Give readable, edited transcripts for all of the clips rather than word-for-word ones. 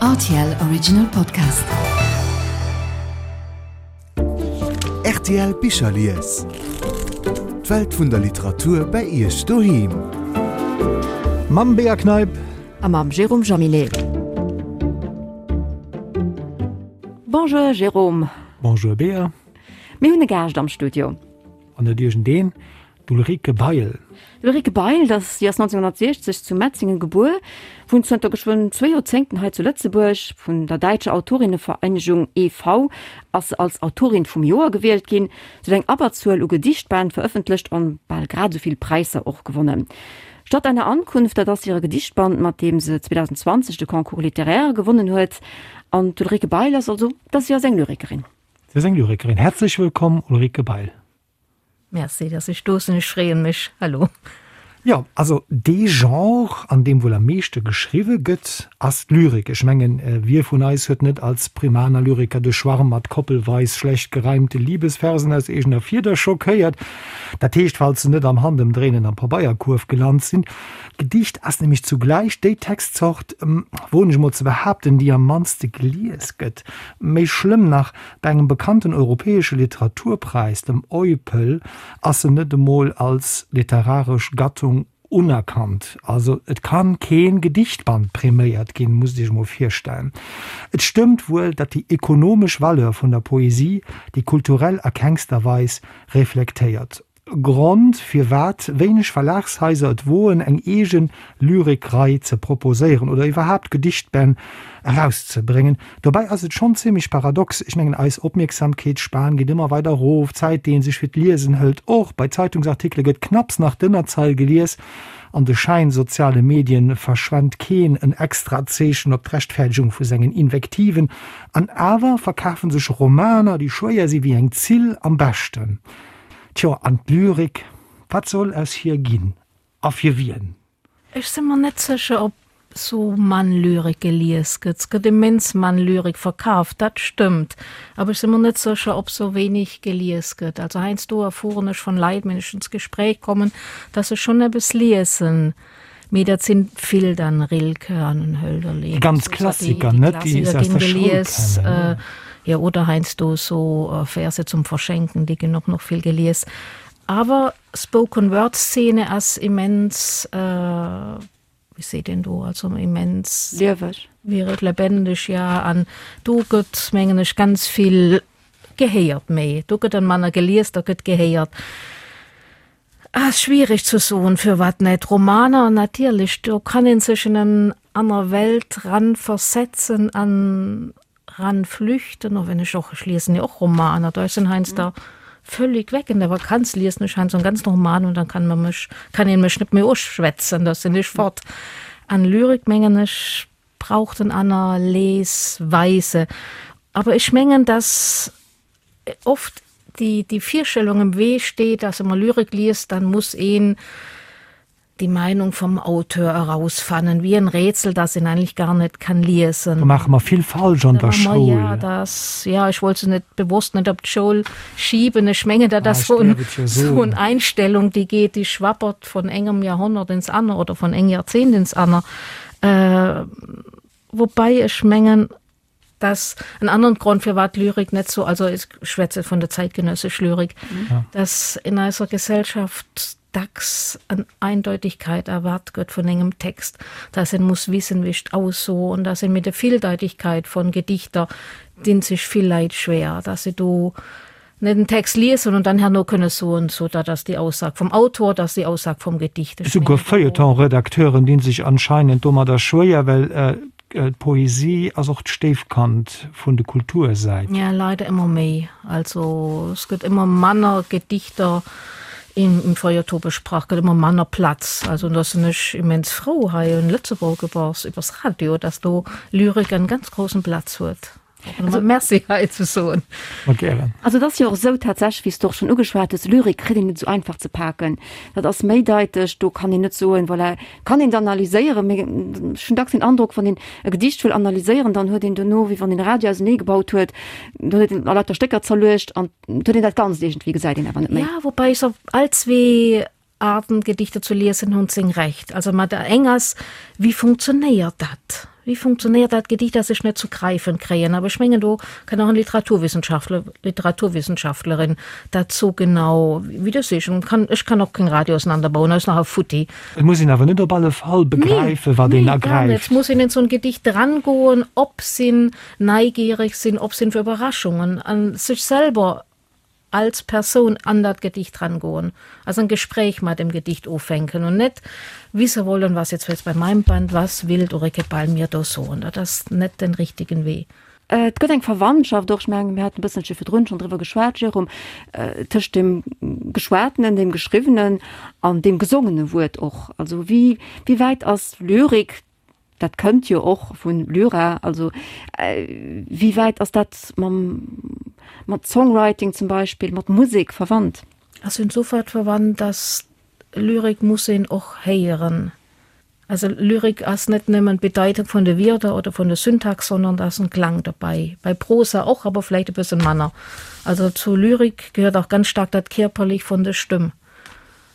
Rtl Original Podcast. Rtl Bicherlies. D'Welt vun der Literatur bei Iech doheem. Mam Bea Kneip. A mam Jérôme Jaminet. Bonjour Jérôme. Bonjour Bea. Mir hunn e Gaascht am Studio. An net iergendeen, D'Ulrike Bail. D'Ulrike Bail, dat si ass 1960 zu Metzingen gebuer, wunnt zënter geschwënn zwéi Joerzéngten hei zu Lëtzebuerg. Vun der Däitscher Autorinnenvereinigung e.V. ass se als Autorin vum Joer gewielt ginn. Se huet eng Abberzuel u Gedichtbänn verëffentlecht an bal grad esou vill Präisser och gewonnen. Statt einer Ankunft, dat ass hire Gedichtband, mat deem se 2020 de Concours littéraire gewonnen huet. An d'Ulrike Bail ass also, dat si ass eng Lyrikerin. Si ass eng Lyrikerin. Häerzlech wëllkomm, Ulrike Bail. Merci, dass ech do sinn. Ech freeën mech. Hallo. Jo, also dee Genre, an deem wuel am meeschte geschriwwe gëtt, ass d'Lyrik. Ech mengen, wie vun eis huet net als Primaner Lyriker de Schwarm mat koppelweis schlecht gereimte Liebesversen aus eegener Fieder schockéiert? Dat heescht, falls se net am Handëmdréinen am Pabeierkuerf gelant sinn. D'Gedicht ass nämlech zugläich déi Textzort, woen ech emol ze behaapten, déi am mannste gelies gëtt. Méi schlëmm nach, Bei engem bekannten europäesche Literaturpräis, dem EUPL, ass se net emol als literaresch Gattung unerkannt. Also et kann keen Gedichtband präméiert ginn, musst Iech emol virstellen. Et stëmmt wuel, datt déi ekonomesch Valeur vun der Poesie déi kulturell a kengster Weis reflektéiert. Grond, firwat wéineg Verlagshaiser et woen, eng eege Lyrikrei ze proposéieren oder iwwerhaapt Gedichtbänn erauszebréngen. Dobäi ass et schonn zimmlech paradox, ech mengen, eis Opmierksamkeetsspan geet ëmmer weider erof, d'Zäit, déi ee sech fir d'Liesen hëlt och, bei Zeitungsartikele gëtt knapps nach d'Ënnerzeil gelies, an de schäinsoziale Medien verschwent keen en extrat Zeechen op d'Rechtfäerdegung vu sengen Invektiven, an awer verkafe sech Romaner, déi schwéier si wéi eng Zill, am beschten. Tjo, an d'Lyrik, wat soll aus hir ginn a fir wien? Ech si mer net sécher, ob sou mann Lyrik gelies gëtt. 't gëtt immens mann Lyrik verkaaft, dat stëmmt, awer ech si mer net sécher, ob sou wéineg gelies gëtt. Also heiansdo erfueren ech von Leit, wenn ech ins Gespräch kommen, dass se schonn eppes liesen, mee dat sinn vill dann Rilke an Hölderlin. Déi ganz Klassiker, net déi se aus der Schoul kennen. Jo, oder heiansdo so Verse zum Verschenken, déi ginn och nach vill gelies. Awer Spoken Word Szene ass immens, wéi seet een do, also immens. Lieweg. Lebendig, ja. An do gëtt, mengen ech, ganz vill gehéiert méi. Do gëtt dann manner gelies, da gëtt gehéiert. Ass schwierig ze soen, firwat net. Romaner natierlech, do kann een sech in en aner Welt ran versetzen an ran flüchten, och wenn ech och, ech liesen jo och Romaner, da ech sinn heiansdo völlig weg in der Vakanz, liesen ech heiansdo en ganzen Roman und dann kann man mech, kann een mech net méi uschwätzen, da sinn ech fort. An Lyrik mengen ech braucht en aner Lesweise. Aber ech mengen, dass oft déi, déi Virstellung im Wee steet, dass wa man Lyrik liest, dann muss een die Meinung vom Auteur erausfannen, wie en Rätsel, das een eigentlich gar net kann liesen. Do maache mer vill falsch an der Schoul. Ja, das, ja, ech wollt se net bewosst net op d'Schoul schieben. Ech mengen, dat ass so en, so en Einstellung, déi geet, déi schwappert von engem Jahrhundert ins aner oder von engem Jahrzehnt ins aner. Äh, wobei ech mengen, dass en aneren Grond firwat Lyrik net so, also ech schwätze vun der zeitgenössesch Lyrik, ja. dass in eiser Gesellschaft dacks en Eindeutigkeit erwart gëtt vun engem Text, dass en muss wissen wéi ech ausso und dass en mit der Vieldeutigkeit von Gedichter dinn sech vill Leit schwer, dass se do net den Text liesen und dann herno kënne soen, so dat ass déi Aussag vum Autor, dat ass déi Aussag vum Gedicht. Ech Esouguer Feuilleton-Redakteuren dinn sech anscheinend domadder schwéier, well d'Poesie ass och d'Stéifkand vun de Kultursäit. Ja, leider ëmmer méi. Also es gëtt ëmmer manner Gedichter im Feuilleton besprach, gëtt ëmmer manner Platz. Also da sinn ech immens frou hei in Lëtzebuerg iwwer iwwers Radio, dass do Lyrik en ganz großen Platz huet. Also, Merci hei ze soen. Mat gären. Also et ass jo och esou tatsächlech, wéi s de och schonn ugeschwat hues, Lyrik kritt een net esou einfach ze paken. Dat ass méideiteg, do kann een net soen, voilà, kann een et analyséieren, mee ech hunn dacks den Androck, wann een e Gedicht wëll analyséieren, dann huet een dono, wéi wann een e Radio auseneegebaut huet, do huet een a lauter Stécker zerluecht an et huet een dat Ganzt iergendwéi, gesäit een awer net méi. Ja, woubäi ech op all zwee Arten Gedichter zu liesen hunn seng Recht. Also mat der eng ass, wéi funktionéiert dat? Wéi funktionéiert dat Gedicht, dat ech net zu gräifen kréien? Awer ech mengen, do kann och en Literaturwissenschaftler, Literaturwissenschaftlerin dat sou genau wéi de sech. Kann, ech kann och keng Radio auseinanderbauen, ass nach e futti. Et muss een awer net op alle Fall begräifen, wat een Nee, gar net. ergräift. Et muss een in sou en Gedicht drangoen, op sinn, neigierig sinn, op sinn fir Überraschungen an sech selber als Persoun an dat Gedicht rangoen, also en Gespräch mat dem Gedicht ufänken und net wisse wollen, was jetzt jetzt bei meinem Band, was will d'Ulrike Ball mir do soen. Dat ass net den richtigen Wee. Et gëtt eng Verwandtschaft och, ech mengen, mir haten e bësselche virdrun schonn driwwer geschwat, Jérôme, tëscht dem Geschwatenen, dem Geschriwwenen an deem gesongene Wuert och. Also wéi, wéi wäit ass Lyrik, Dat kënnt jo och vun Lyra. Also wéi wäit ass dat mam, mat Songwriting zum Beispill, mat Musek verwandt? Ass insofern verwandt, dass Lyrik muss een och héieren. Also Lyrik ass net nëmmen d'Bedeitung vun de Wierder oder vun der Syntax, sondern da ass en Klang dobäi. Bei Prosa och, awer vläicht e bësse manner. Also zu Lyrik gehört auch ganz stark dat Kierperlich vun der Stëmm.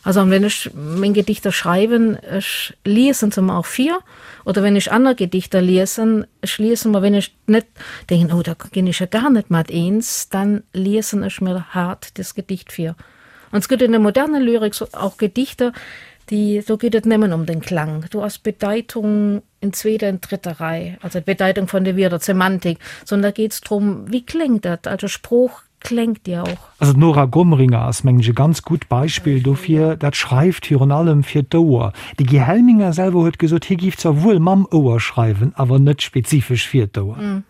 Also an wenn ech meng Gedichter schreiwen, ech liesen se mer och vir, oder wenn ech aner Gedichter liesen, ech liesen mer, wenn ech net denken, oh da ginn ech jo gar net mat eens, dann liesen ech mir hart das Gedicht vir. An es gëtt in der modernen Lyrik so auch Gedichter, déi, do geet et nëmmen ëm den Klang, do ass d'Bedeitung in zweeter an dritter Rei, also d'Bedeitung vun de Wierder, d'Semantik, sondern da geet es drëm, wéi kléngt dat, also Sprooch kléngt jo och. Also d'Nora Gomringer ass, mengen ech, e ganz gutt Beispill dofir. Dat schreift virun allem fir d'Ouer. De Guy Helminger selwer huet gesot, hie géif zwar wuel mam Ouer schreiwen, awer net spezifesch fir d'Ouer.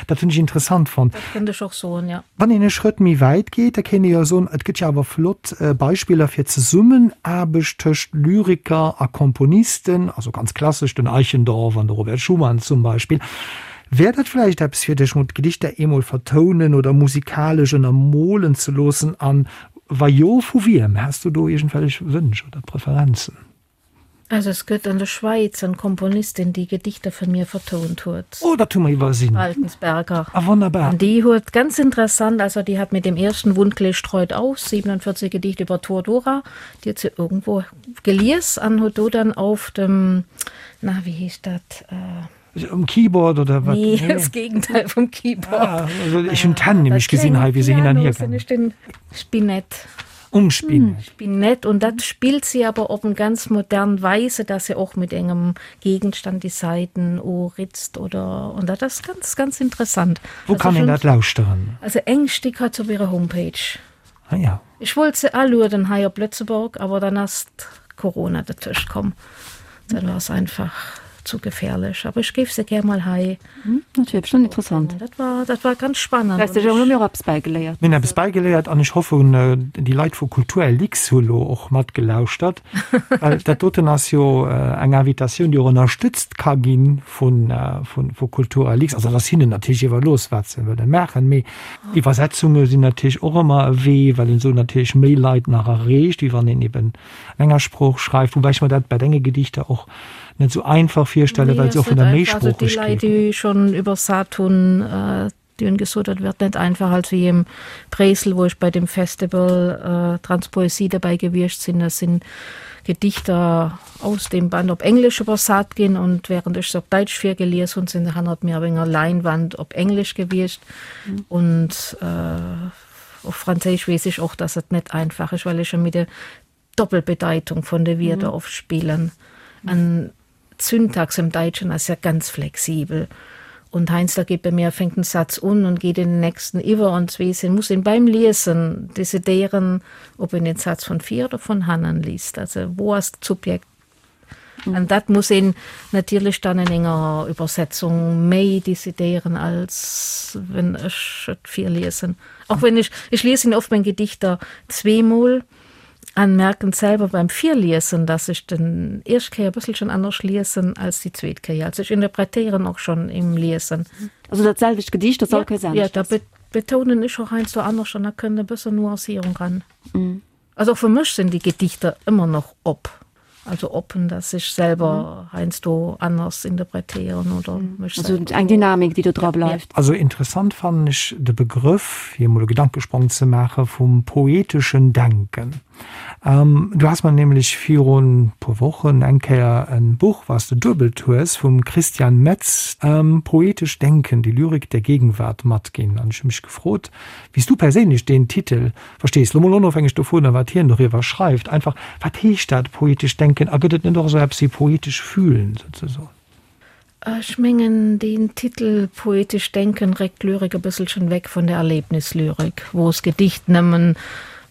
Dat hunn ech interessant fonnt. Dat kënnt ech och soen, jo. Wann een e Schrëtt méi wäit geet, da kéint ee jo soen, et gëtt jo awer flott Beispiller fir Zesummenaarbecht tëscht Lyriker a Komponisten, also ganz klassesch den Eichendorff an de Robert Schumann zum Beispill. Wär dat vläicht eppes fir dech, mol d'Gedichter eemol vertounen oder musikalesch ënnermolen ze loossen? An wa jo, vu wiem? Häss du do iergendwellech Wënsch oder Preferenzen? Also es gëtt an der Schwäiz en Komponistin, déi Gedichter vun mir vertount huet. Oh, dat hu mer iwwersinn. Baltensberger. Ah, wonnerbar. An déi huet ganz interessant, also déi hat mit dem ersten Wundklee streut aus, 47 Gedichte über Toradora, déi huet se irgendwo gelies an huet do dann auf dem, na, wéi heescht dat? Um Keyboard oder wat? Nee, das Gegenteil vum Keyboard. Ah, also ech hunn d'Hänn nämlech gesinn hei, wéi se hin an hier gaangen. Den Spinett. Um Spinett. Spinett und dat spillt sie aber op en ganz modern Weise, dass se och mit engem Gegenstand die Saiten uritzt oder und dat ass ganz ganz interessant. Wou kann een dat lauschteren? Also eng Stick hat se op ihrer Homepage. Ah ja. Ech wollt se alueden hei op Lëtzeborg, awer dann ass Corona dertëscht komm. Dann war es einfach zu gefährlech. Aber ech géif se gär mol hei. Dat wier bestëmmt interessant. Dat war, dat war ganz spannend. Weißt du, hu mir och eppes bäigeléiert. Mir hunn eppes bäigeléiert an ech hoffen, déi Leit vu Kulturlix hu lo och matgelauschtert, well dat doten ass jo eng Invitatioun, déi och ënnerstëtzt ka gi vu Kulturlix. Also dat ass hinnen natierlech iwwerlooss, wat se wëlle maachen, mee Iwwersetzunge sinn natierlech och ëmmer e Wee, well een esou natierlech méi Leit nach erreecht, wéi wann een eben an enger Sprooch schreift. Woubäi ech mer dat bei denge Gedichter och net esou einfach virstellen, well se och vun der Méisproochegkeet. Also déi Leit, déi schonn iwwersat hunn, déi hunn gesot, dat wird net einfach. Also wéi am Bréissel, wou ech bei dem Festival Transpoesie derbäi gewiescht sinn, da sinn Gedichter aus dem Band op Englesch iwwersat ginn und während ech se op Däitsch virgelies hunn, sinn se hannert mir op enger Leinwand op Englesch gewiescht. Und op Franséisch weess ech och, dass et net einfach ass, well ech jo mit der Doppelbedeitung vun de Wierder oft spillen. An d'Syntax im Daitschen ass ja ganz flexibel. Und heiansdo geet bei mir, fänkt en Satz un und geet in den nächsten iwwer und weess een, muss een beim Liesen decidéieren, ob een den Satz von vir oder von hannen liest. Also wou ass d'Subjekt? An dat muss een natierlech dann in enger Übersetzung méi decidéieren, als wenn ech et virliesen. Och wenn ech, ech liesen oft meng Gedichter zweemol an merken selwer beim Virliesen, dass ech den éischt Kéier e bësselchen anescht liesen als déi zweet Kéier. Also ech interpretéieren och schonn im Liesen. Also dat selwecht Gedicht, dat all Kéiers anescht ass? Jo, da betounen ech och heiansdo anescht an da kënnt e bëssen Nuancierung ran. Also och fir mech sinn déi Gedichter ëmmer nach op. Also oppen, dass ech selwer heiansdo anders interpretéieren oder mech Also selwer. eng Dynamik, déi do dra bleift. Also interessant fannen ech de Begrëff, fir emol e Gedankesprong ze maachen, vum poeteschen Denken. Du has mer nämlech virun puer Wochen eng Kéier en Buch, was de duebelt hues, vum Christian Metz, Poetisch Denken, die Lyrik der Gegenwart matginn. An ech hu mech gefrot, wéi s du perséinlech deen Titel verstees, lo mol onofhängeg dovunner, wat hien doriwwer schreift. Einfach, wat heescht dat, poetesch denken? A gëtt et net och esou eppes wéi poetesch fühlen, souzesoen? Ech mengen, deen Titel Poetisch Denken réckt d'Lyrik e bësselchen weg vun der Erlebnislyrik, wou s Gedicht nëmmen,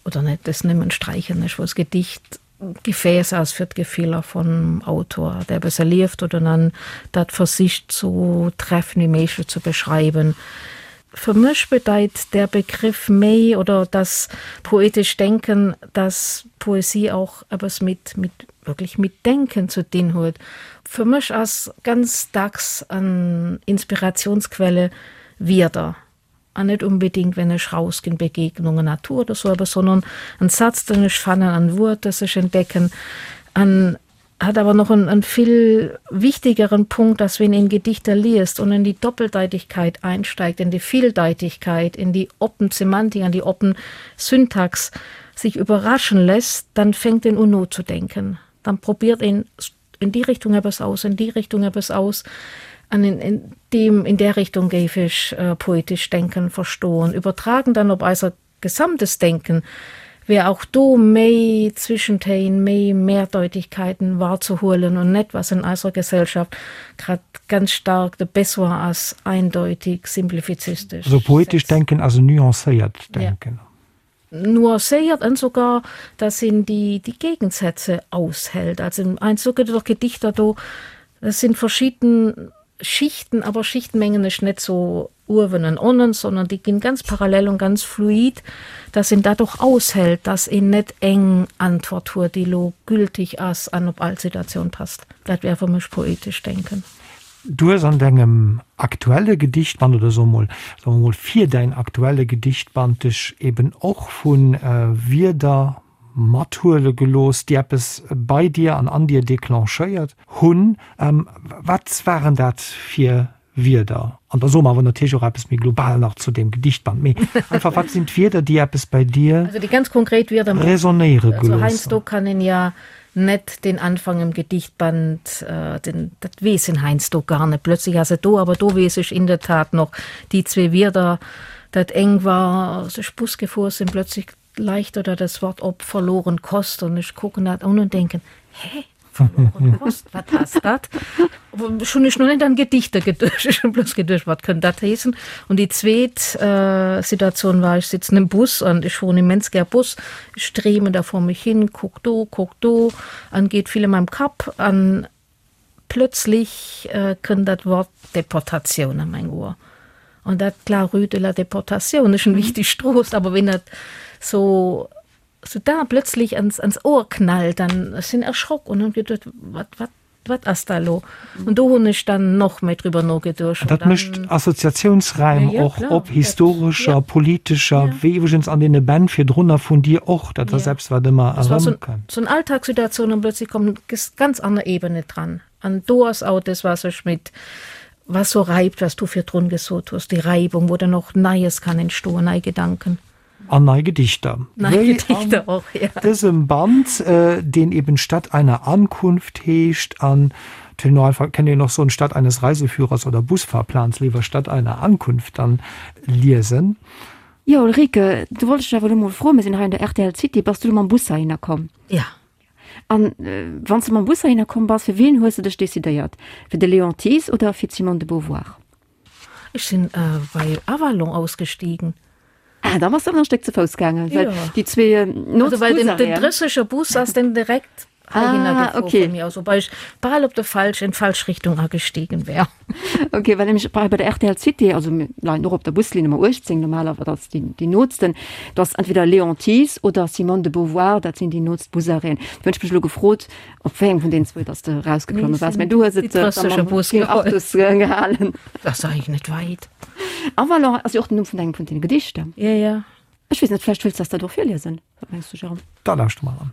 oder net des nëmmen sträichen ech, wou s Gedicht Gefäß ass fir d'Gefiller vum Autor, der eppes erlieft oder dann dat versicht sou treffend wéi méiglech ze beschreiwen. Fir mech bedeit der Begriff méi, oder das poetisch Denken, dass Poesie auch eppes mit, mit, wirklich mit Denken zu dinn huet. Fir mech ass ganz dacks an Inspirationsquelle Wierder, an net unbedingt wenn ech rausginn, Begegnungen, Natur oder sou eppes, sondern en Satz den ech fannen, en Wuert das ech entdecken. An hat awer noch en, en vill wichtigeren Punkt, dass wenn een Gedichter liest und in die Doppeldeutigkeit einsteigt, in die Vieldeutigkeit, in die oppen Semantik, an die oppen Syntax sich überraschen lässt, dann fängt en un nozedenken. Dann probiert een in die Richtung eppes aus, in die Richtung eppes aus. An in, in dem, in der Richtung géif ech poetisch Denken verstoen. Übertragen dann op eiser gesamtes Denken wär auch do méi Zwischentéin, méi Mehrdeutigkeiten wahrzuhuelen und net, was in eiser Gesellschaft grad ganz stark de Besoin ass, eindeutig, simplifizistesch. Also poetisch Denken ass en nuancéiert Denken. Nuancéiert an sogar, dass een déi, déi Gegensätze aushält. Also heiansdo gëtt et och Gedichter do, das sind verschieden Schichten, aber Schichten mengen ech net so uewen an onnen, sondern déi ginn ganz parallel und ganz fluid, dass een dat och aushält, dass een net eng Antwort huet, déi elo gültig ass an op all Situatioun passt. Dat wär fir mech poetesch Denken. Du hues an dengem aktuelle Gedichtband, oder soe mol, soe mer mol fir däin aktuelle Gedichtband dech eben och vu Wierder mathuele gelooss, déi eppes bei dir an an dir declenchéiert hunn. Wat waren dat fir Wierder? An da soe mer awer natierlech och eppes méi global nach zu deem Gedichtband. Mee einfach, wat sinn d'Wierder, déi eppes bei dir Also déi ganz konkret Wierder, resonéiere also gelooss hunn? heiansdo kann een ja net den Anfang im Gedichtband, den, dat weess een heiansdo gar net. Plötzlich ass et do, awer do weess ech in der Tat noch déi zwee Wierder. Dat eng war, als ech Bus gefuer sinn, plötzlich leicht oder das Wort op verloren Kost und ech kucken dat un und denken, hä? Verloren Kost, wat ass dat? Ech hunn ech noch net an Gedichter geduecht, ech hunn bloss geduecht, wat kënnt dat heessen? Und déi zweet Situatioun war, ech sitzen im Bus an ech fueren immens gär Bus, ech dreemen da vor mech hin, kuck do, kuck do an geet vill a meinem Kapp an plötzlich kënnt dat Wort Deportatioun a meng Ohr. An dat la rue de la Déportation ass eng wichteg Strooss, awer wéi dat so so da plötzlich ans, ans Ohr knallt, dann ech sinn erschrock und hunn geduet, wat, wat, wat ass da lo? Und do hunn ech dann noch méi drüber nogeduecht. Und Dat mécht Assoziatiounsräim ja, ja, och op historescher, ja. politescher, ja. wéi iwwregens an deene Bänn virdrunner vun dir och, dat ass ja. eppes, wat ëmmer erëmkënnt. So, so eng Alltagssituatioun und plötzlich kommt ganz aner Ebene dran. An do ass auch das, was ech mit was so reibt, was du virdrun gesot hues, déi Reibung, wou dann och Neies kann entstoen, nei Gedanken. An nei Gedichter. Nei Wéi Gedichter och, ja. Dësem Band, deen eben Stadt einer Ankunft heescht an no einfach kennt een och soen Stadt eines Reiseführers oder Busfahrplans, léiwer Stadt einer Ankunft dann liesen. Jo Ulrike, du wollt ech dech awer elo mol froen, mir sinn hei an der rtl City, bass du elo mam Bus heihinner komm? Ja. An wann s de mam Bus heihinner komm bass, fir wien hues de dech decidéiert? Fir de Léon Thies oder fir d'Simone de Beauvoir? Ech sinn bei Avalon ausgestiegen. Ah, da bass de awer nach e Stéck ze Fouss gaangen, well déi zwee nootst Busarrêten. Also well den drësseger Bus ass dann direkt heihinner ah, gefuer okay. vun mir aus, wobei ech bal op de falsch, in d'falsch Richtung agestiegen wär. Okay, well nämlech bei der RTL City, also mir leien och op der Buslinn Nummer 18 normalerweis, dat ass déi, déi nootsten, do ass entweder Léon Thies oder Simone de Beauvoir, dat sinn déi nootst Busarrêten. Do hunn ech mech elo gefrot, op wéi engem vun deenen zwou dass de erausgeklomme waars, mä du hues et da mam Bus geholl. Gehalen. Dat ass eigentlech net wäit. Avalon ass jo och den Numm vun engem vun deene Gedichter. Ja, ja. Ech weess net, vläicht wëlls de eis dat och virliesen? Wat mengs du, Jérôme? Da lauschte mer an.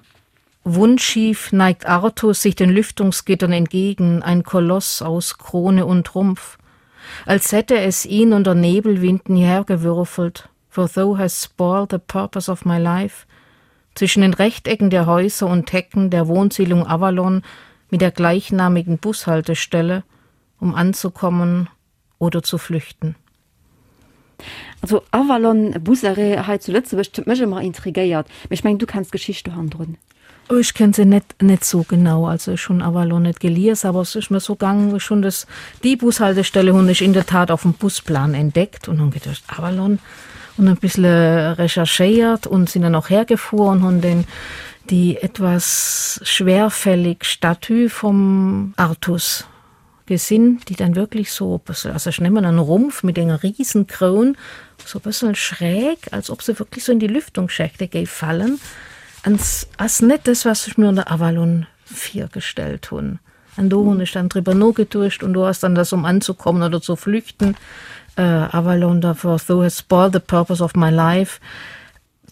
Wundschief neigt Artus sich den Lüftungsgittern entgegen, ein Koloss aus Krone und Rumpf, als hätte es ihn unter Nebelwinden hierhergewürfelt, for thou hast spoiled the purpose of my life. Zwischen den Rechtecken der Häuser und Hecken der Wohnsiedlung Avalon mit der gleichnamigen Bushaltestelle, um anzukommen oder zu flüchten. Also Avalon Busarrêt hei zu Lëtzebuerg, dat huet mech ëmmer intrigéiert, mee ech mengen du kenns d'Geschicht do hannendrun. Oh ech kenn se net net sou genau, also ech hunn Avalon net gelies, awer es ass mir sou gaang, ech hunn des déi Bushaltestelle hunn ech in der Tat auf dem Busplan entdeckt und hunn geduecht Avalon und e bissle recherchéiert und sinn dann och hergefuer und hunn den déi etwas schwerfällig Statue vom Artus gesinn, déi dann wirklich so e bëssel, also ech nemmen en Rumpf mit enger riesen Kroun, so e bëssel schräg, als ob se wirklich so in die Lüftungsschächte géif fallen, an ass net das, was ech mir unter Avalon virgestellt hunn. An do hunn ech dann driwwer nogeduecht und do ass dann das um anzukommen oder zu flüchten, Avalon, for thou hast spoiled the purpose of my life,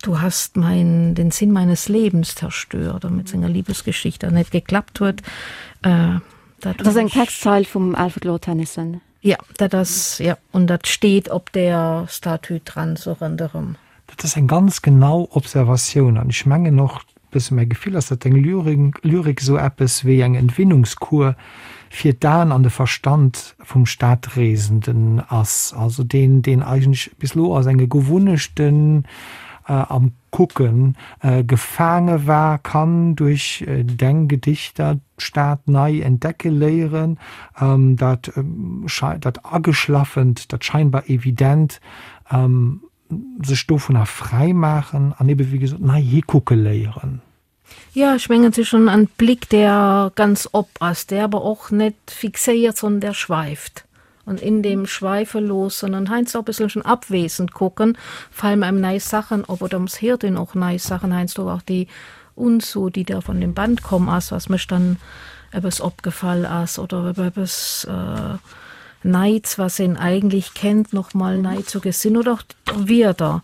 Du hast mein, den Sinn meines Lebens zerstört, mit senger Liebesgeschichte dat net geklappt huet. Äh, dat ass eng Textzeil vum Alfred Lord Tennyson. Ja, dat ass, ja, und dat steet op der Statue dran, sou ronderëm. Dat ass eng ganz genau Observatioun an ech mengen och, bësse mäi Gefill ass, datt deng Lyrik esou eppes wéi eng Entwinnungskur fir d'Aen an de Verstand vum Stadreesenden ass, also deen, deen eigentlech bis elo a senge Gewunnechten am Kucke gefaange war, kann duerch deng Gedichter d'Stad nei entdecke léieren, dat dat Ageschlaffent, dat scheinbar Evident sech dovunner fräi maachen an ebe wéi gesot nei hikucke léieren. Jo, ech mengen, et ass schon en Blick, der ganz op ass, der awer och net fixéiert, sondern der schweift. Und in dem Schweife loossen an heiansdo och e bësselchen abwesend kucken, fallen einem nei Sachen op oder ums héiert een och nei Sachen heiansdo och, déi uns so, déi da von dem Band komm ass, was mech dann eppes opgefall ass oder eppes Neits, was een eigentlich kennt, noch mal nei zu gesinn oder auch Wierder,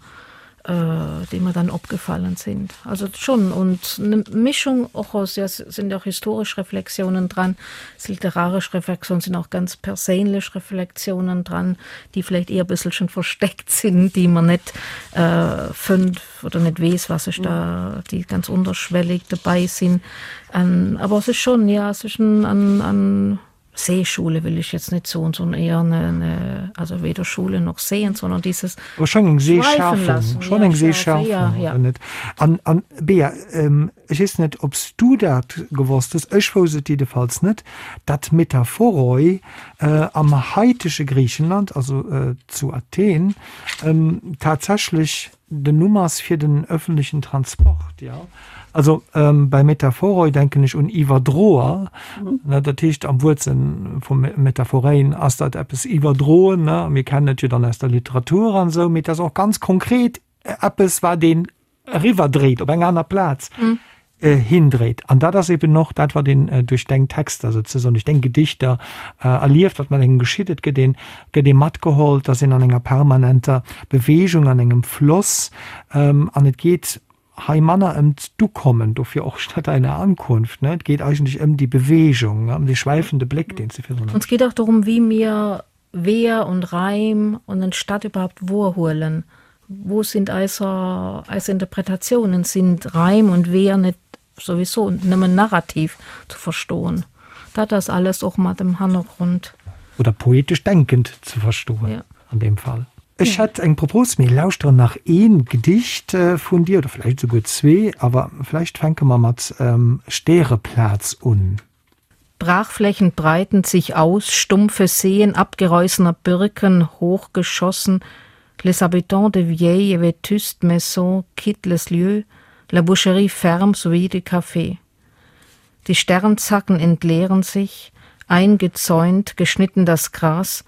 déi mer dann opgefallen sind. Also schon und eine Mischung och aus, ja, sind auch historisch Reflexionen dran, es literarisch Reflexionen, sind auch ganz perséinlech Reflexionen dran, déi vielleicht eher e bësselchen versteckt sind, déi man net fënnt oder net weess, was sech da, déi ganz unterschwellig dobäi sinn. Awer es ist schon, ja, es ist en, en, en Seeschule will ich jetzt net soen, sondern eher eine, eine, also weder Schule noch Seen, sondern dieses Aber schon eng Seeschärfung, schon eng Seeschärfung, ja, ja. net. An, an Bea, ähm, ech weess net, ob s du dat gewosst hues, ech wousst et jiddefalls net, datt Metaphoroi äh, am haitege Griichenland, also äh, zu Athen, ähm, tatsächlech Den Numm ass fir den öffentlichen Transport, jo. Also bei Metaphoroi denken ech un Iwwerdroer, ne, dat heescht am Wuertsënn vu Metaphorein ass dat eppes iwwerdroen, ne, mir kennen et jo dann aus der Literatur an esou, mee et ass och ganz konkret eppes wat een eriwwerdréit op eng aner Plaz. Hindréit. An dat ass eben och dat, wat een duerch deng Texter souzesoen, duerch deng Gedichter erlieft, wat mat engem geschitt. Et gëtt een, gëtt ee matgeholl, et ass een an enger permanenter Beweegung, an engem Floss. An et geet hei manner ëm d'Ukommen, dofir och statt einer Ankunft, ne? Et geet eigentlech ëm déi Beweegung, ëm dee schwäifende Bléck, deen s de virdrun. Uns geet auch darum, wie mir Weeër und Raim und en Stadt überhaupt wohrhuelen. Wo sind eiser eis Interpretatiounen? Sind Raim und Weeër net souwisou nëmmen narrativ zu verstoen? Dat ass alles och mat em Hannergrond. Oder poetesch denkend ze verstoen an deem Fall. Ech hätt eng Propos, mir lauschteren nach een Gedicht vun dir, oder vläicht esouguer zwee, awer vläicht fänke mer mat Stäreplaz un. Brachflächen breiten sich aus, stumpfe Seen abgereußener Birken hochgeschossen, les habitants de vieilles et vétustes maisons quittent les lieux, la boucherie ferme sowie de Café. Die Sternzacken entleeren sich, eingezäunt, geschnitten das Gras.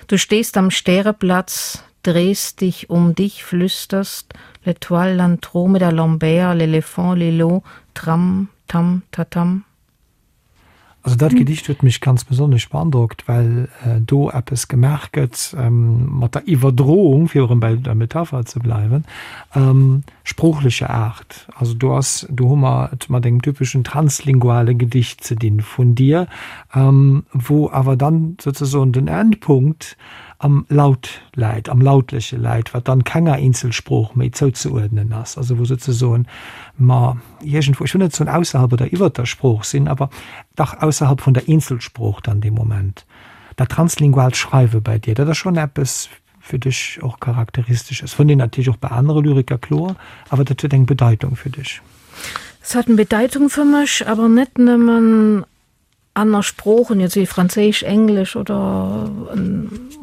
Du stehst am Stäreplatz, drehst dich um dich, flüsterst, l'Etoile, l'Andromeda, Lambert, l'éléphant, Lilo, Tram, Tam, Tatam. Also dat Gedicht huet mech ganz besonnesch beandrockt, well do eppes gemaach gëtt mat der Iwwerdroung, fir erëm bei der Metapher ze bleiwen, sproochlecher Aart. Also do ass, do hu mer et mat engem typeschen translinguale Gedicht ze dinn vun dir, wou awer dann souzesoen den Endpunkt. am Laut läit, am Lautleche läit, wat dann kenger Eenzelsprooch méi zouzeuerdnen ass, also wou souzesoen mer iergendwou, ech wëll net soen ausserhalb oder iwwert der Sprooch sinn, awer dach ausserhalb vun der Eenzelsprooch dann dee Moment. Dat translinguaalt Schreiwe bei dir, dat ass schonn eppes fir dech och Charakteristesches. Fënnt een natierlech och bei anere Lyriker, kloer, awer dat huet eng Bedeitung fir dech. Es hat eng Bedeitung fir mech, awer net nëmmen aner Sproochen, jetzt wéi Franséisch, Englesch oder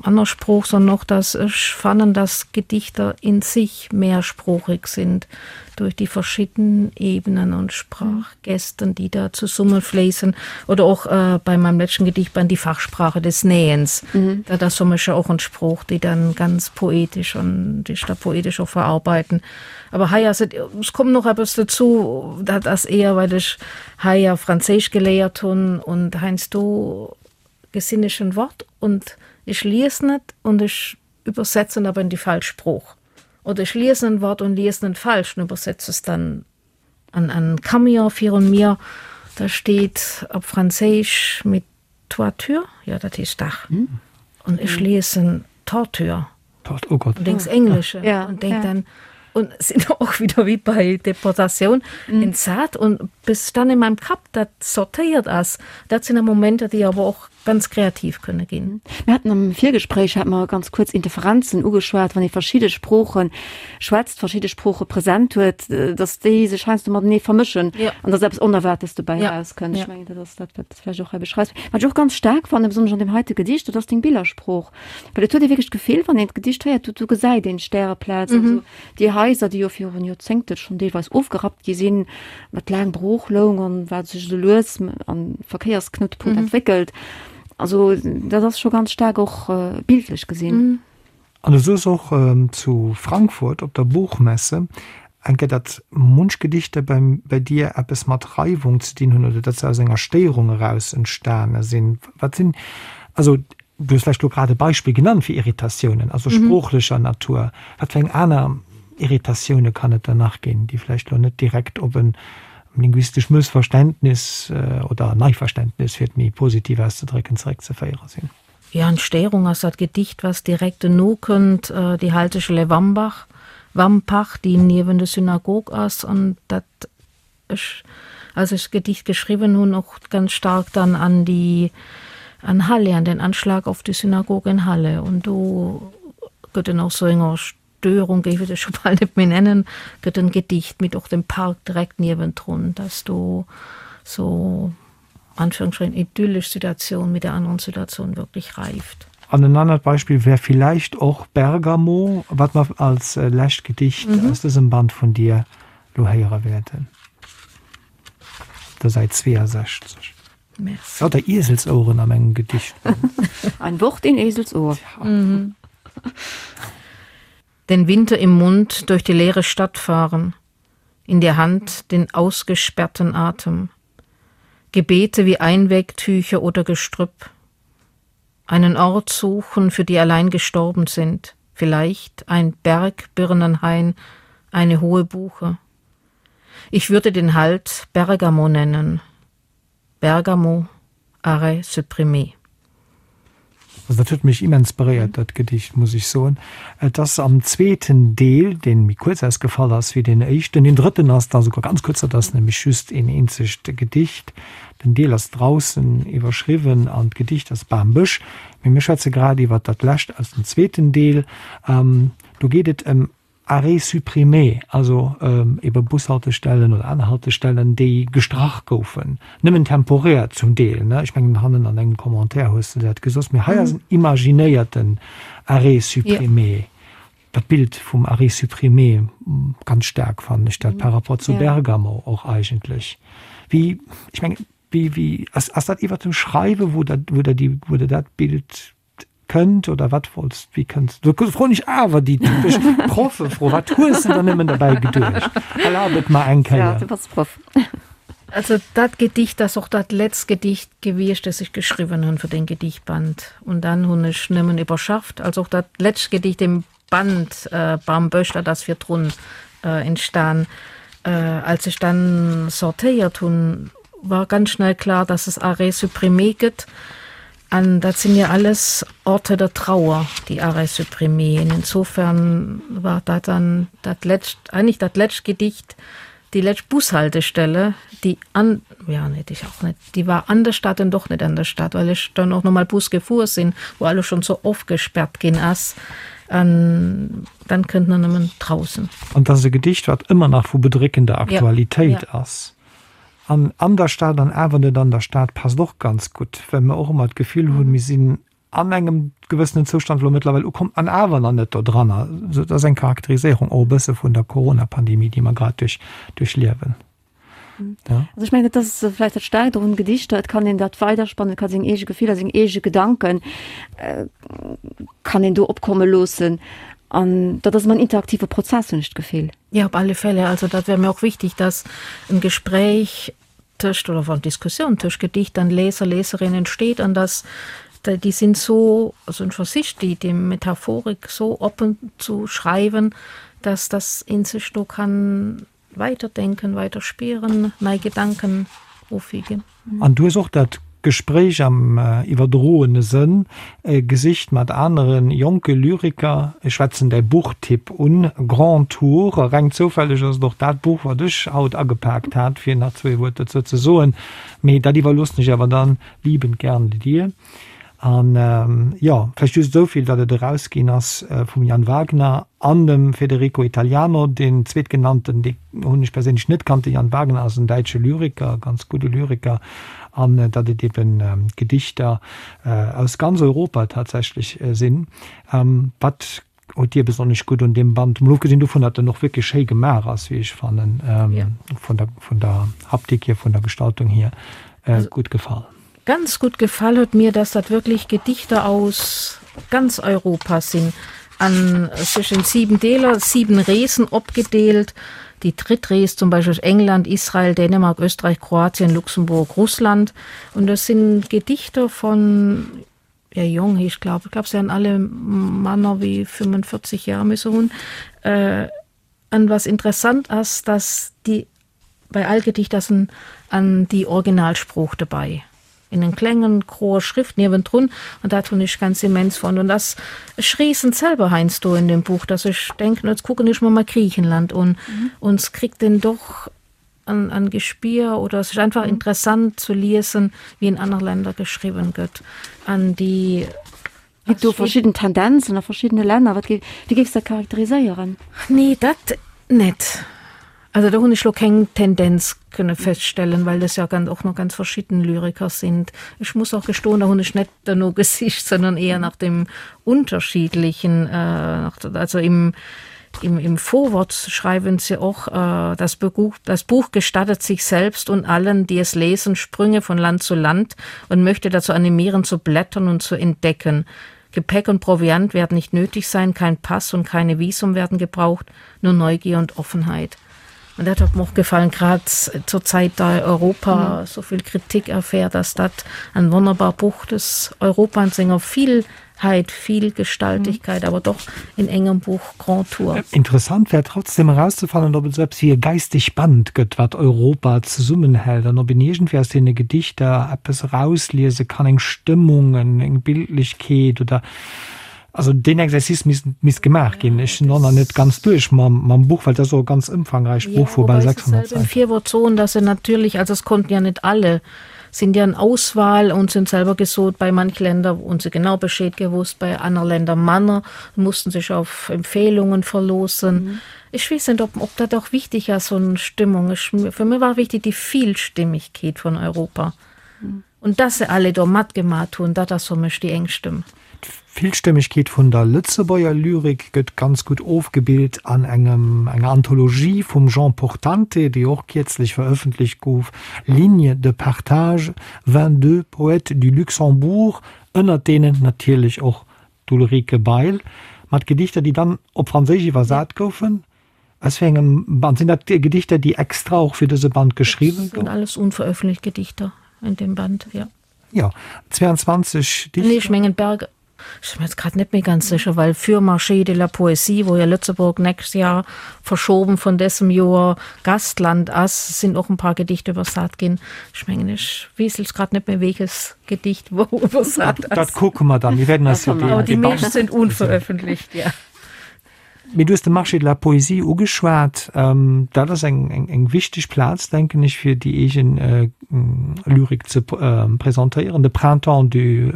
aner Sprooch, sondern och, dass ech fannen, dass Gedichter in sich mehrsproochig sind durch die verschiedenen Ebenen und Sprachgesten, die da zusammenfließen. Oder och äh, bei meinem letzten Gedichtband die Fachsprache des Nähens. Mhm. Da das für mich auch ein Spruch, die dann ganz poetisch und die da poetisch auch verarbeiten. Aber hei ass et, es kommt noch eppes dozou, dat ass eher, well ech hei ja Franséisch geléiert hunn und heiansdo gesinn ech en Wort und ech liesen et und ech übersetzen aber in die falsch Sprooch. Oder ech liesen en Wort und liesen en falsch und übersetze es dann an en Camion virun mir, da steet op Franséisch mit Toiture, jo dat heescht Dach, und ech liesen Torture. Oh Gott. Und denkst Englische ja, und denk ja. dann und sind auch wieder wie bei Deportation mhm. entsat und bis dann in meinem Kap dat sortéiert ass, dat sinn Momenter, déi awer och ganz kreativ kënne ginn. Mir haten am Virgespréich hat mer ganz kuerz Interferenzen ugeschwat, wann ee verschidde Sprooche schwätzt, verschidde Sprooche präsent huet, datt déi sech heiansdo matenee vermëschen ja. an datt eppes Onerwaartes dobäi ja. rauskënnt. Ja. Ech mengen, dat ass dat, wat du vläicht och hei beschreifs. Wat ech och ganz staark fannen, besonnesch an deem heite Gedicht, dat ass deng Billersprooch. Well et huet ee wierklech d'Gefill, wann een d'Gedicht héiert, do, do gesäit een d'Stäreplaz, mhm. also déi Haiser, déi jo virun Joerzéngte schonn deelweis ofgerappt gi sinn, wat laang brooch loung an wat sech esou lues an Verkéiersknutepunkt mhm. entwéckelt. Also dat ass scho ganz staark och äh, bildlech gesinn. Mhm. An du soos och zu Frankfurt op der Buchmesse eng Kéier, datt munch Gedichter bei dir eppes mat Reiwung ze dinn hunn oder datt se aus enger Stéierung eraus entstane sinn. Wat sinn, also du hues vläicht elo grad e Beispill genannt fir Irritatiounen, also sproochlecher Natur. Wat fir eng aner Irritatioune kann et dann nach ginn, déi vläicht elo net direkt op e linguistesch Mëssverständnis oder Neiverständnis, fir et méi positiv auszedrécken, zeréckzeféiere sinn? Ja, an Stéierung ass dat Gedicht, was direkt dono kënnt, déi Haltestelle Wambach, Wampach, déi niewen der Synagog ass an dat ech, als ech d'Gedicht geschriwwen hunn, och ganz stark dann an déi, an Halle, an den Anschlag auf die Synagoge in Halle. Und do gëtt en och sou enger Störung, géif ech et scho bal net méi nennen, gëtt en Gedicht mit och dem Park direkt niewendrun, dass do sou Anführungsstrichen idyllisch Situation mit der anderen Situation wirklich reift. An en anert Beispill wär villäicht och Bergamo, wat mer als lescht Gedicht aus dësem Band vun dir lo héiere wäerten, op der Säit 62. Merci. Lauter Ieselsoueren an engem Gedicht. Ein Wort in Eselsohr. Den Winter im Mund durch die leere Stadt fahren, in der Hand den ausgesperrten Atem. Gebete wie Einwegtücher oder Gestrüpp. Einen Ort suchen, für die allein gestorben sind, vielleicht ein Bergbirnenhain, eine hohe Buche. Ich würde den Halt Bergamo nennen. Bergamo, arrêt supprimé. Also dat huet mech immens beréiert, dat Gedicht, muss ech soen. Et ass am zweeten Deel, dee méi kuerz ausgefall ass wéi deen éischten. Deen drëtten ass da souguer ganz kuerz, dat ass nämlech just een eenzegt Gedicht. Den Deel ass Draußen iwwerschriwwen an d'Gedicht ass Bam-Bësch. Mee mir schwätze grad iwwer dat lescht aus dem zweeten Deel. Do geet et ëm Arrêts supprimés, also ebe Bushaltestellen oder aner Haltestellen, déi gestrach goufen, nëmmen temporär zum Deel, ne? Ech mengen, hannen an engem Commentaire hues de dat gesot. Mee hei ass en imaginéierten Arrêt supprimé. Dat Bild vum Arrêt supprimé, ganz staark fannen ech dat par rapport zu Bergamo och eigentlech. Wéi, ech mengen, wéi, wéi, ass, ass dat iwwert dem Schreiwen, wou der, wou der déi, wou der dat Bild Kënnt oder wat wollts, wéi kënns du? Do froen ech awer déi typesch Proffefro, Wat hues de der nëmmen derbäi geduecht? Erlab et mer eng Kéier. Ja, du bass Proff. Also dat Gedicht ass och dat letzt Gedicht gewiescht, dat ech geschriwwen hunn fir den Gedichtband. Und dann hunn ech nëmmen iwwerschafft. Also och dat letzt Gedicht im Band Bambësch, dat ass virdrun entstan. Als ech dann sortéiert hunn, war ganz schnell klar, dass es Arrêt supprimé gëtt. An dat sinn ja alles Orte der Trauer, die Arrêt supprimé. Insofern war dat dann dat lescht, eigentlich dat lescht Gedicht, déi lescht Bushaltestelle, déi an, ja net, ich auch net, déi war an der Stadt an doch net an der Stadt, well ech dann och nochmal Bus gefuer sinn, wou alles schon sou ofgesperrt ginn ass. An dann kënnt en nëmmen draußen. An 't ass e Gedicht, wat ëmmer nach vu bedréckender Aktualitéit ass. An an der Stad an awer net an der Stad passt och ganz gutt, well mer och ëmmer d'Gefill hunn, mir sinn an engem gewëssenen Zoustand elo mëttlerweil ukomm an awer nach net dodranner. Dat ass eng Charakteriséierung och e bësse vun der Corona-Pandemie, déi mer grad duerch duerchliewen. Ja. Also ech mengen, dat ass vläicht dat Staarkt och un Gedichter, et kann een dat weiderspannen, et ka seng eege Gefiller, seng eege Gedanken kann een do opkomme loossen an dat ass ëmmer en interaktive Prozess, hunn ech d'Gefill. Ja, op alle Fälle. Also dat wär mir och wichtig, dass en Gespräch tëscht oder wann Diskussioun tëscht Gedicht an Leser, Leserin entsteet an dass déi sinn so, also en versicht déi déi Metaphorik so oppen zu schreiwen, dass dass een sech do kann weiterdenken, weiter spieren, nei Gedanken ofwiegen. An du hues och dat Gespréich am iwwerdroene Sënn gesicht mat anere jonke Lyriker. Ech schwätzen däi Buchtipp un, Grand Tour. Reng zoufälleg ass et och dat Buch, wat ech haut agepaakt hat, fir nach zwee Wuert dozou ze soen. Mee dat iwwerloossen ech awer dann liebend gern dir. An jo, vläicht just esou vill, datt et erausginn ass vum Jan Wagner an dem Federico Italiano. Deen zweetgenannten, dee hunn ech perséinlech net kannt. De Jan Wagner ass en däitsche Lyriker, ganz gudde Lyriker. An datt et eben Gedichter aus ganz Europa tatsächlech sinn. Wat huet dir besonnesch gutt un deem Band, mol ofgesinn dovun, datt en och wierklech schéi gemaach ass, wéi ech fannen, vun der, vun der Haptik hier, vun der Gestaltung hier, gutt gefall? Ganz gut gefall huet mir, dass dat wirklich Gedichter aus ganz Europa sinn an sech in sieben Deeler, sieben Reesen opgedeelt. Déi dritt Rees zum Beispill ass England, Israel, Dänemark, Österreich, Kroatien, Luxemburg, Russland. Und das sinn Gedichter von ja jong heescht glaub ich, glaub se han alle manner wéi 45 Jahre müsse hunn. An was interessant ass, dass déi bei all Gedicht ass en an déi Originalsprooch dobei in en klengen groer Schrift niewendrun an dat hunn ech ganz immens fonnt. Und ass ech reesen selber heiansdo in dem Buch, dass ech denken, jetzt kucken ech mer mal Griechenland un und es kriegt en doch an an Gespier oder es ist einfach interessant zu liesen, wie in aner Länder geschriwwen gëtt an déi Ginn do verschidden Tendenzen a verschiddene Länner? Wat géif, wéi géifs de dat charakteriséieren? Nee, dat net. Also do hunn ech lo keng Tendenz kënne feststellen, well das ja ganz, och noch ganz verschidden Lyriker sind. Ech muss och gestoen, da hunn ech net derno gesicht, sondern eher nach dem Unterschiedlichen, äh, also im, im, im Vorwort schreiben sie och, äh, das Buch, das Buch gestattet sich selbst und allen, die es lesen, Sprünge von Land zu Land und möchte dazu animieren, zu blättern und zu entdecken. Gepäck und Proviant werden nicht nötig sein, kein Pass und keine Visum werden gebraucht, nur Neugier und Offenheit. Und dat hat mir och gefallen, grad zur Zäit, da Europa mhm. so vill Kritik erfährt, dass dat ein wonnerbar Buch des Europa an senger Vielheit, Vielgestaltigkeit, mhm. aber doch in engem Buch Grand Tour. Interessant wär trotzdem erauszefannen, ob et esou eppes wéi e geisteg Band gëtt, wat Europa zesummenhält an ob een iergendwéi aus deene Gedichter eppes erausliese kann, eng Stëmmung, eng Bildlechkeet oder Also deen Exercice misst, misst gemaach ginn. Ech sinn och nach net ganz duerch mam, mam Buch, well dat ass och e ganz ëmfangräicht Buch vu bal 600 Säiten. Virwort soen, dass se natürlich, also es konnten ja nicht alle, sind ja in Auswahl und sind selber gesot, bei manch Länder hunn se genau Bescheed gewusst, bei aner Länder manner, mussten sich auf Empfehlungen verloossen. Ech weess net, ob, ob dat och wichtig ass, so eng Stimmung. Ech, fir mir war wichtig déi Vielstimmigkeet vun Europa. Und dass se alle do matgemat hunn, dat ass fir mech déi eng Stëmm. D'Villstëmmegkeet vun der Lëtzebuerger Lyrik gëtt ganz gutt ofgebilt an engem enger Anthologie vum Jean Portante, déi och kierzlech verëffentlecht gouf, Lignes de partage, 22 poètes du Luxembourg, ënnert deenen natierlech och d'Ulrike Bail, mat Gedichter, déi dann op Franséisch iwwersat goufen. Aus wéi engem Band? Sinn dat Gedichter, déi extra och fir dëse Band geschriwwen goufen? Dat sinn alles unveröffentlicht Gedichter in dem Band, jo. Jo, 22 Dichter. Nee, ech mengen Berg. Ech sinn mir jetzt grad net méi ganz sécher, well für Marché de la Poésie, wou jo Lëtzebuerg nächst Jahr verschoben vun dësem Joer Gastland ass, sinn och en paar Gedichter iwwersat ginn. Ech mengen, ech weess jetzt grad net méi, wéiches Gedicht wou iwwersat ass. Dat kucke mer dann. Mir wäerten eis jo deen. Déi meescht sinn unveröffentlicht, ja. Mee du hues de Marché de la Poésie ugeschwat. Dat ass eng wichteg Plaz, denken ech, fir déi eegen Lyrik ze presentéieren. De Printemps du,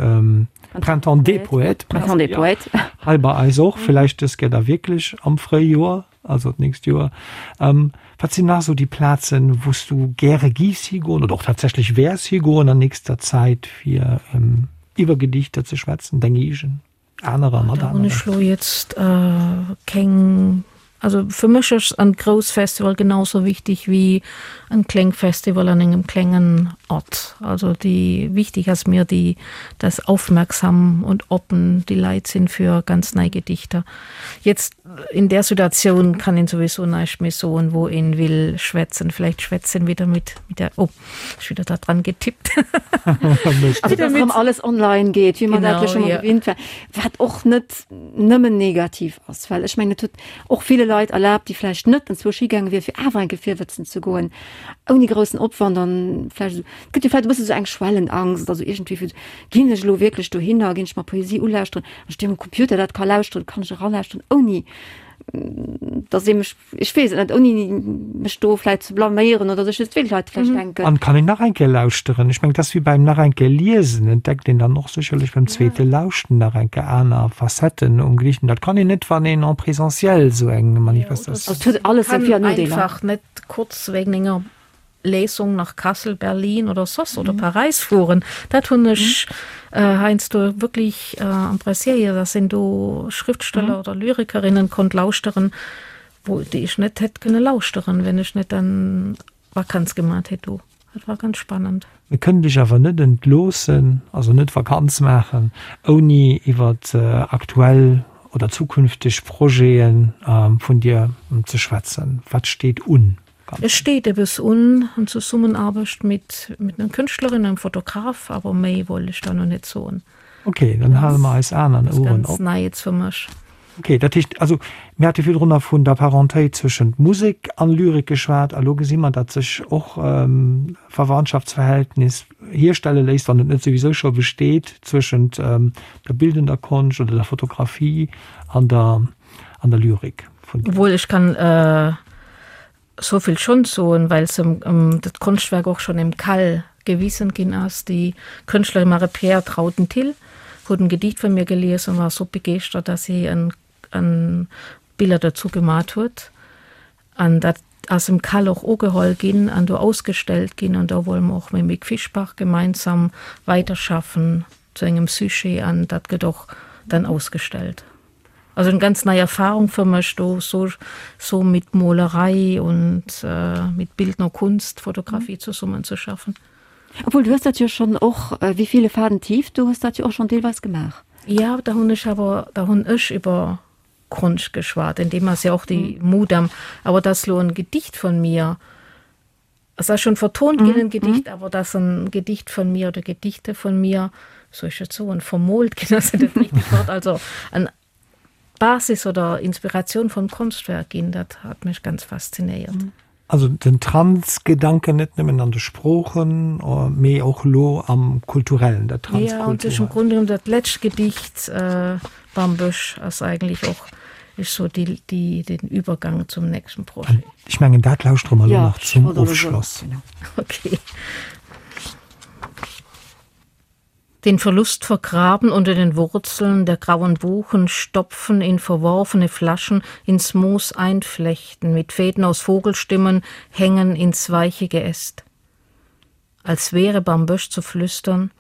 Printemps des Poètes, Printemps des Poètes, hei bei eis och, villäicht dës Kéier da wierklech am Fréijoer, also d'nächst Joer. Wat sinn nach esou déi Plazen, wou s du gäre giffs higoen oder och tatsächlech wäers higoen an nächster Zäit, fir iwwer Gedichter ze schwätzen, deng eegen? Anerer mat aneren. Ech lo jetzt äh, keng also fir mech ass en grouss Festival genauso wichtig wie en kleng Festival an engem klengen Ort. Also déi wichtig ass mir déi dass aufmerksam und oppen déi Leit sinn fir ganz nei Gedichter. Jetzt in der Situation kann een sowieso näischt méi soen wou een will schwätzen. Vielleicht schwätzen wieder mit mit der oh. Ech wieder da dran getippt. Also, dass erëm alles online geet, wéi mer dat jo scho mol gewinnt war, wat och net nëmmen negativ ass, well ech mengen, et huet och ville Leit erlaabt, déi vläicht net enzwousch higaange wier, fir awer eng Kéier virwëtzen ze goen, ouni groussen Opwand an vläicht esou, et gëtt jo vläicht e bësse sou eng Schwellenangst oder sou iergendwéi vu, ginn ech elo wierklech dohinner, ginn ech mer Poesie ulauschteren, wann ech déi um Computer dat ka lauschteren, kann ech eralauschteren, ouni dass ee mech Ech weess et net, ouni mech do vläit ze blaméieren oder sech just wéi d'Leit vläicht denken. An kann een nach eng Kéier lauschteren. Ech mengen, et ass wéi beim nach eng Kéier liesen, entdeckt een dann och sécherlech beim zweete Lauschten nach eng Kéier aner Facetten um Gedicht. An dat kann een net, wann een en présentiel esou eng Manifestatioun. Et huet alles seng Vir an Nodeeler. Einfach net kurz wegen enger Lesung nach Kassel, Berlin oder soss oder Paräis fueren. Dat hunn ech heiansdo wierklech appréciéiert, dass een do Schriftsteller oder Lyrikerinnen konnt lauschteren, wou déi ech net hätt kënne lauschteren, wenn ech net dann Vakanz gemat hätt do. Dat war ganz spannend. Mir kënnen dech awer net entloossen, also net Vakanz maachen, ouni iwwer aktuell oder zukünfteg Projete vun dir ze schwätzen. Wat steet un? Es steet eppes un, en Zesummenaarbecht mit mit enger Kënschtlerin, engem Fotograf, awer méi wollt ech da no net soen. Ok, dann hale mer eis Aen an Oueren op. Ganz nei jetzt fir mech. Ok, dat heescht, also mir hate virdrunner vun der Parentéit zwëschent Musek an Lyrik geschwat, a lo gesi mer, datt sech och Verwandtschaftsverhältnis hierstelle léisst, wann et net souwisou scho besteet, zwëschent der bildender Konscht oder der Fotografie an der an der Lyrik vun. Obwuel ech kann souvill schonn soen, well se dat Konschtwerk och schonn im Cal gewisen ginn ass, déi Kënschtlerin Marie-Pierre Trauten-Thill huet en Gedicht vun mir gelies an war sou begeeschtert, dass si en en Biller dozou gemat huet. An dat ass im Cal och ugeholl ginn an do ausgestellt ginn. An do wolle mer och mam Mick Fischbach gemeinsam weiterschaffen zu engem Sujet an dat gëtt och dann ausgestellt. Also eng ganz nei Erfahrung fir mech do so so mit Molerei und mit bildner Kunst, Fotografie zesummen ze schaffen. Obwuel du hues dat jo schonn och Wie viele Faden tief, du hues dat jo och schonn deelweis gemaach. Ja, da hunn ech awer da hunn ech iwwer Konscht geschwat, in deem ass ja och déi Mudam, awer dass lo en Gedicht von mir, Es ass schon vertont ginn, en Gedicht, awer dass en Gedicht von mir oder Gedichte von mir, soll ech dat soen, vermoolt ginn ass net dat richtegt Wort, also en Basis oder Inspiratioun vum Konschtwerk ginn, dat hat mech ganz faszinéiert. Also den Transgedanken net nëmmen an de Sproochen, mee och elo am Kulturellen, dat Transkulturellt. Ja, und im Grunde genommen dat lescht Gedicht Bambësch ass eigentlich och Ech so déi, déi, den Übergang zum nächsten Projet. Ech mengen, dat lauschtere mer elo nach zum Ofschloss. Okay. Den Verlust vergraben unter den Wurzeln der grauen Buchen, stopfen in verworfene Flaschen, ins Moos einflechten, mit Fäden aus Vogelstimmen hängen ins weiche Geäst. Als wäre Bambösch zu flüstern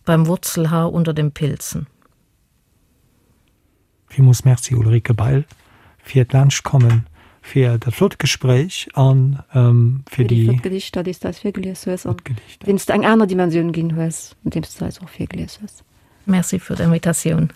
beim Wurzelhaar unter den Pilzen. Villmools Merci Ulrike Bail fir d'Laanschtkommen, fir dat flott Gespréich an fir déi flott Gedichter, déi s de eis virgelies hues an deenen s de eng aner Dimensioun ginn hues, andeems s de eis och virgelies hues. Merci fir d'Invitatioun.